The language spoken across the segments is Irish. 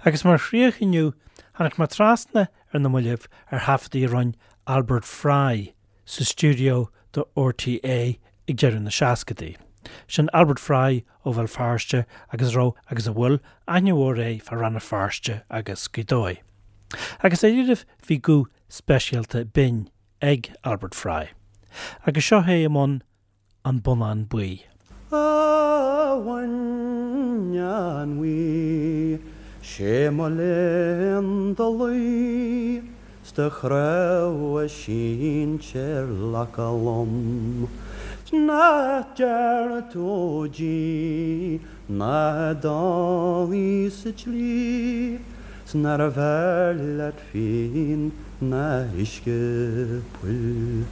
Agus mar chríoch inniu, tháinig mé trasna ar na mallaibh ar thaifeadtaí a rinne Albert Fry sa stiúideo do RTÉ ag deireadh na seascadaí. Sin Albert Fry ó Bhéal Feirste agus a raibh, agus a bhfuil, aithne mhór air fá Rann na Feirste agus Gaoth Dobhair. Agus dáiríribh bhí guth speisialta binn ag Albert Fry. Agus seo é i mbun An Bonnán Buí. A bhonnáin bhuí, 'sé mo léan do luí 's do chnámha sínte ar lacha lom. 'S nach dearna tú di ná dul sa tslí 's nárbh fhearr leat fíon ná uisce poill.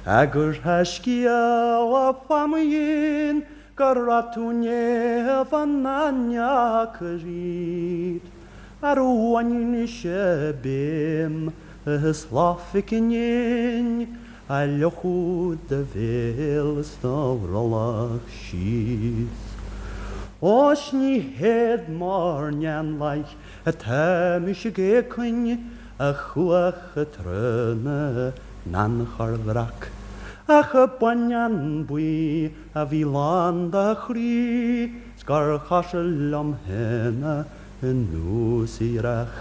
Agur tá scéala fá mo dhéin go raibh tú naofa nach ndeacair iad. Ar bhain sé béim is lá phicinnín a fhliuchadh do bhéal is do bhrollach síos. Ó 's ní héad mar n-éanlaith atá mise ag éacain a chuach i dtreo na n-anchor bhreac, ach a bonnán buí a bhí lán do chroí 's gur chosúil liom féin anuas a dhreach.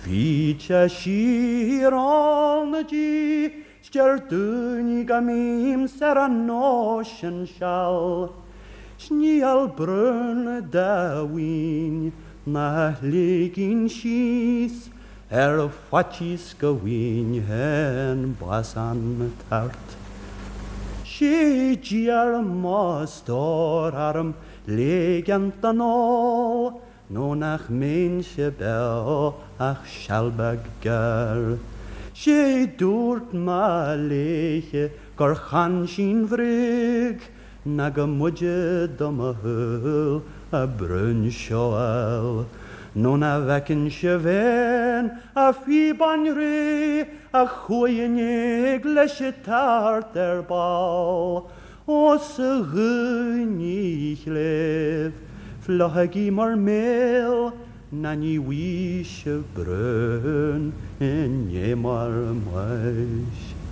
Bhíd sé siar ól na dí 's deir daoine go mbím-sa ar an nós sin seal. 'S níl brón dá mhaoin ná liginn síos ar faitíos go bhfaighinn féin bás an tart. 'Sé d'iarr mo stór orm ligean don ól nó nach mbeinnse beo ach seal beag gearr. 'Sé dúirt mo léithe gur chan sí'n bhréag ná go mb'fhaide do mo shúil a bruinseáil, nó ná bhfeicinn sibh féin a phíobáin réidh a chuaigh in éag leis an tart ar ball. Ó 's a dhaoine chléibh, fliuchaigí bhur mbéal ná ní bhfaighidh sibh brón i ndiaidh bhur mbáis.